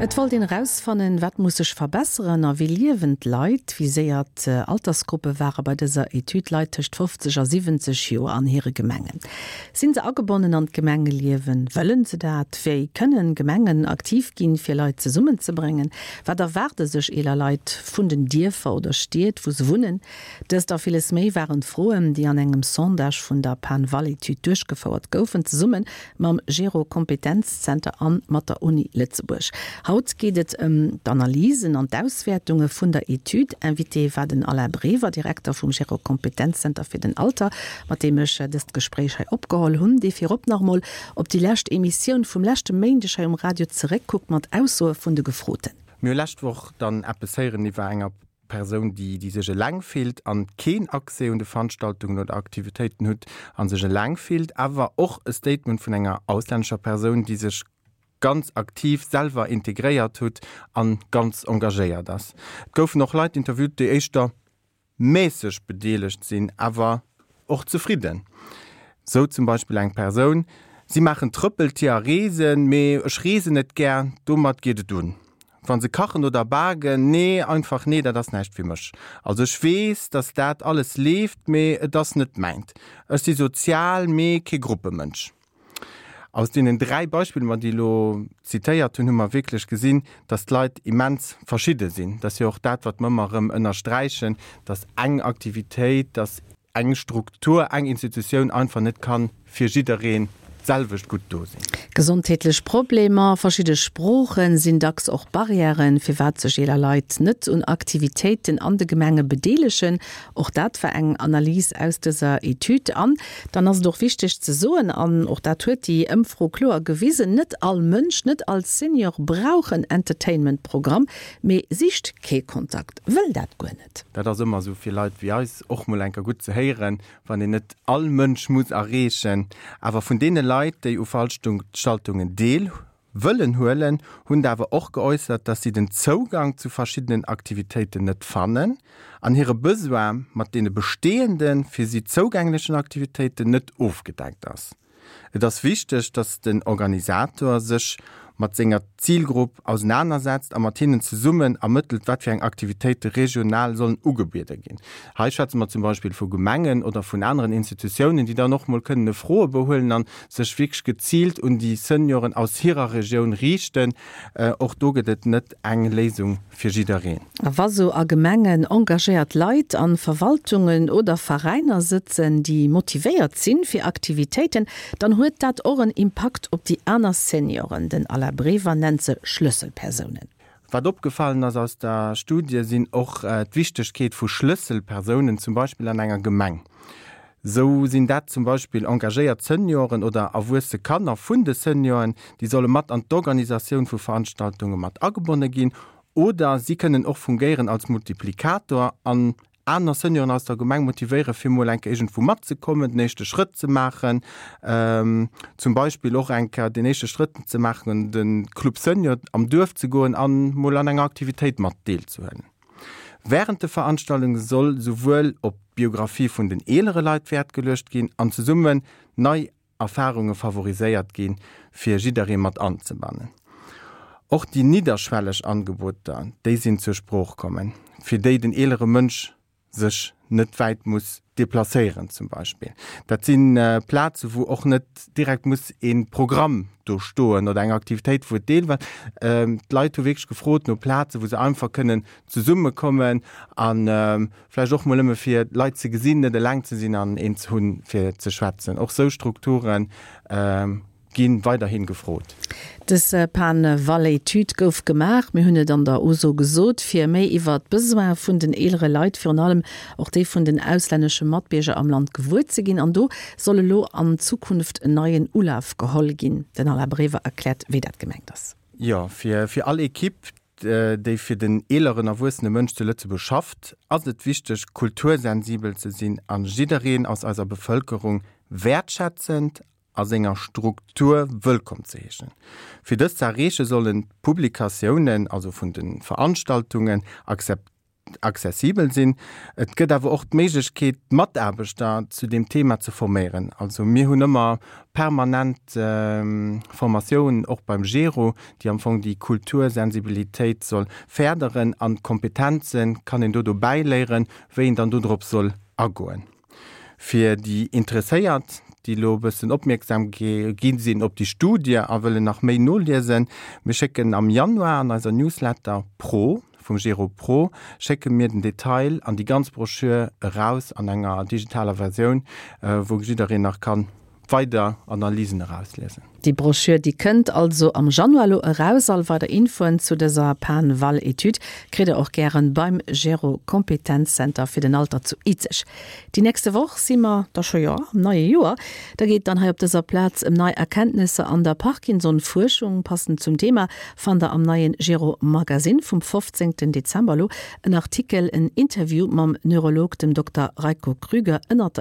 Et wollt een erausfannen, wat muss sech verbesseren a wéi liewen d'Leit. Viséiert Altersgruppe ware bei dëser Etüd Leit tëscht 50 a 70 Joer an hire Gemengen. Sinn se agebonnen an d'Gemengeliewen? Wëllen se dat? Wéi kënnen Gemengen aktiv ginn, fir Leit zesummenzebréngen? Wat erwaarde sech eeler Leit vun den Dierfer oder Stied, wou se wunnen? Dëst a villes méi waren d'Froen, déi an engem Sondage vun der PanVal-Etüd duerchgefouert goufen, zesumme mam Gero Kompetenzzenter an mat der Uni Lëtzebuerg. Haut geet et ëm d'Analysen an d'Auswäertunge vun der Etüd. Invité war den Alain Brever, Direkter vum Gero Kompetenzzenter fir den Alter, mat deem ech dëst Gespréich hei opgeholl hunn, dee virop nach emol op déi lescht Emissioun vum leschte Méindeg hei um Radio zeréckkuckt mat Aussoe vun de Gefroten. Mir hu lescht Woch dann eppes héieren iwwer enger Persoun, déi déi sech eleng fillt an keen Accès un de Veranstaltungen oder Aktivitéiten hutt an sech eleng fillt, awer och e Statement vun enger auslännescher Persoun, déi sech ganz aktiv selwer integréiert hutt an ganz engagéiert ass. Et goufen och Leit interviewt, déi éischter mässeg bedeelegt sinn, awer och zefridden. Sou zum Beispill eng Persoun, Si maachen Trëppeltier a reesen, mee ech reesen net gär, domat geet et un. Wa se kachen oder baken, nee, einfach nee, dat ass näischt fir mech. Also ech weess, dass dat alles leeft, mee et ass net mäint. Ech si sozial, mee kee Gruppemënsch. Aus deenen 3 Beispiller, mer déi elo zitéiert hunn, hu mer wierklech gesinn, dass d'Leit immens verschidde sinn. Dat ass jo och dat, wat mer ëmmer erëm ënnersträichen, dass eng Aktivitéit, dass eng Struktur, eng Institutioun einfach net ka fir jiddereen d'selwecht gutt do sinn. Gesondheetlech Problemer, verschidde Sproochen sinn dacks och Barrièren, firwat sech eeler Leit net un Aktivitéiten an de Gemenge bedeelegen. Och dat war eng Analys aus dëser Etüd. An dann ass et och wichteg ze soen, an och dat huet déi Ëmfro kloer gewisen, Net all Mënsch, net all Senior brauch en Entertainment-Programm, mee sicht kee Kontakt, wëll dat guer net. Dat ass ëmmer esou fir Leit wéi eis och mol enker gutt ze héieren, wann een net all Mënsch muss erreechen. Awer vun deene Leit, déi u Veranstaltungen deel wëllen huelen, hunn der awer och geäussert, dass si den Zougang zu verschiddenen Aktivitéiten net fannen an hire Besoin mat deene bestehenden, fir si zougänglechen Aktivitéiten net ofgedeckt ass. Et ass wichteg, dass den Organisator sech mat senger Zilgrupp ausenanersetzt a mat hinnen zesummen ermëttelt, wat fir eng Aktivitéite regional sollen ugebiede ginn. Hei schwätze mer zum Beispill vu Gemengen oder vun aneren Institutiounen, déi dann och mol kënnen e Froebou huelen a sech wierklech geziilt un déi Senioren aus hirer Regioun riichten. Och do gëtt et net eng Léisung fir jiddereen. A wa sou a Gemengen engagéiert Leit an Verwaltungen oder Veräiner sëtzen, déi motivéiert sinn fir Aktivitéiten, dann huet dat och en Impakt op déi aner Senioren. Den Alain Brever nennt se Schlësselpersounen. Wat opgefallen ass aus der Studie sinn och d'Wichtegkeet vu Schlësselpersounen, zum Beispill an enger Gemeng. Sou sinn dat zum Beispill engagéiert Senioren oder erwuesse Kanner vun de Senioren, déi solle mat an d'Organisatioun vu Veranstaltunge mat agebonne ginn oder si kënnen och fungéieren als Multiplikator an aner Senioren aus der Gemeng motivéiere fir mol eng Kéier iergendwou matzekommen, den éischte Schrëtt ze maachen, zum Beispill och eng Kéier den éischte Schrëtt ze maachen an de Club Senior am Duerf ze goen an mol an enger Aktivitéit mat deelzehuelen. Wärend de Veranstaltunge soll souwuel op d'Biographie vun den eelere Leit Wäert geluecht ginn an zesummen nei Erfarunge favoriséiert ginn, fir jidderee mat anzebannen. Och déi nidderschwelleg Angeboter, déi sinn zur Sprooch kommen, fir déi den eelere Mënsch sech net wäit muss deplacéieren zum Beispill. Dat si Plaze wou och net direkt muss ee Programm do stoen oder eng Aktivitéit, wou et deel war. D'Leit hu wierklech gefrot no Plaze wou se einfach kënnen zesummekommen a vläicht och mol nëmme fir Leit ze gesinn, net eleng ze sinn an een ze hunn, fir ze schwätzen. Och sou Strukture gi weiderhi gefrot. Dës Pan-Val-Etüd gouf gemaach, mir hunn et an der Uso gesot, fir méi iwwer d'Besoine vun den eelere Leit, virun allem och déi vun den auslännesche Matbierger am Land gewuer ze ginn. An do soll elo an Zukunft en neien Ulaf geholl ginn. Den Alain Brever erkläert, wéi dat gemengt ass. Jo, fir all Ekipp, déi fir den eeleren erwuessene Mënsch zu Lëtzebuerg schafft, ass et wichteg, kultursensibel ze sinn a jiddereen aus eiser Bevëlkerung wäertschätzend a senger Struktur wëllkomm ze heeschen. Fir dëst ze erreeche sollen d'Publikatiounen, also vun de Veranstaltungen, akzeptéiert. accessibel sinn. Et gëtt awer och d'Méiglechkeet, d'Mataarbechter zu deem Thema ze forméieren. Also mir hunn ëmmer permanent Formatiounen, och beim GERO, déi am Fong déi Kultursensibilitéit soll férderen an d'Kompetenze kann een do dobäi léieren, wéi een dann do drop soll agoen. Fir déi Interesséiert, déi elo e bëssen opmierksam gi sinn op déi Studie a wëllen nach méi noliesen, mir schécken am Januar an eiser Newsletter Pro vum Gero Pro schécke mir den Detail an déi ganz Broschür eraus an enger digitaler Versioun, wou jiddereen nach kann weider Analysen erausliesen. Déi Broschür, déi kënnt also am Januar elo eraus. All weider Infoen zu dëser PanVal-Etüd kritt der och gären beim Gero Kompetenzzenter fir den Alter zu Izeg. Déi nächste Woch si mer da scho, jo, am neie Joer. Da geet et dann hei op dëser Plaz ëm nei Erkenntnesser an der Parkinson-Fuerschung. Passend zum Thema fannt der am neien Gero Magazine vum 15 Dezember elo en Artikel, en Interview mam Neurolog, dem Dokter Reiko Krüger, ënnert der.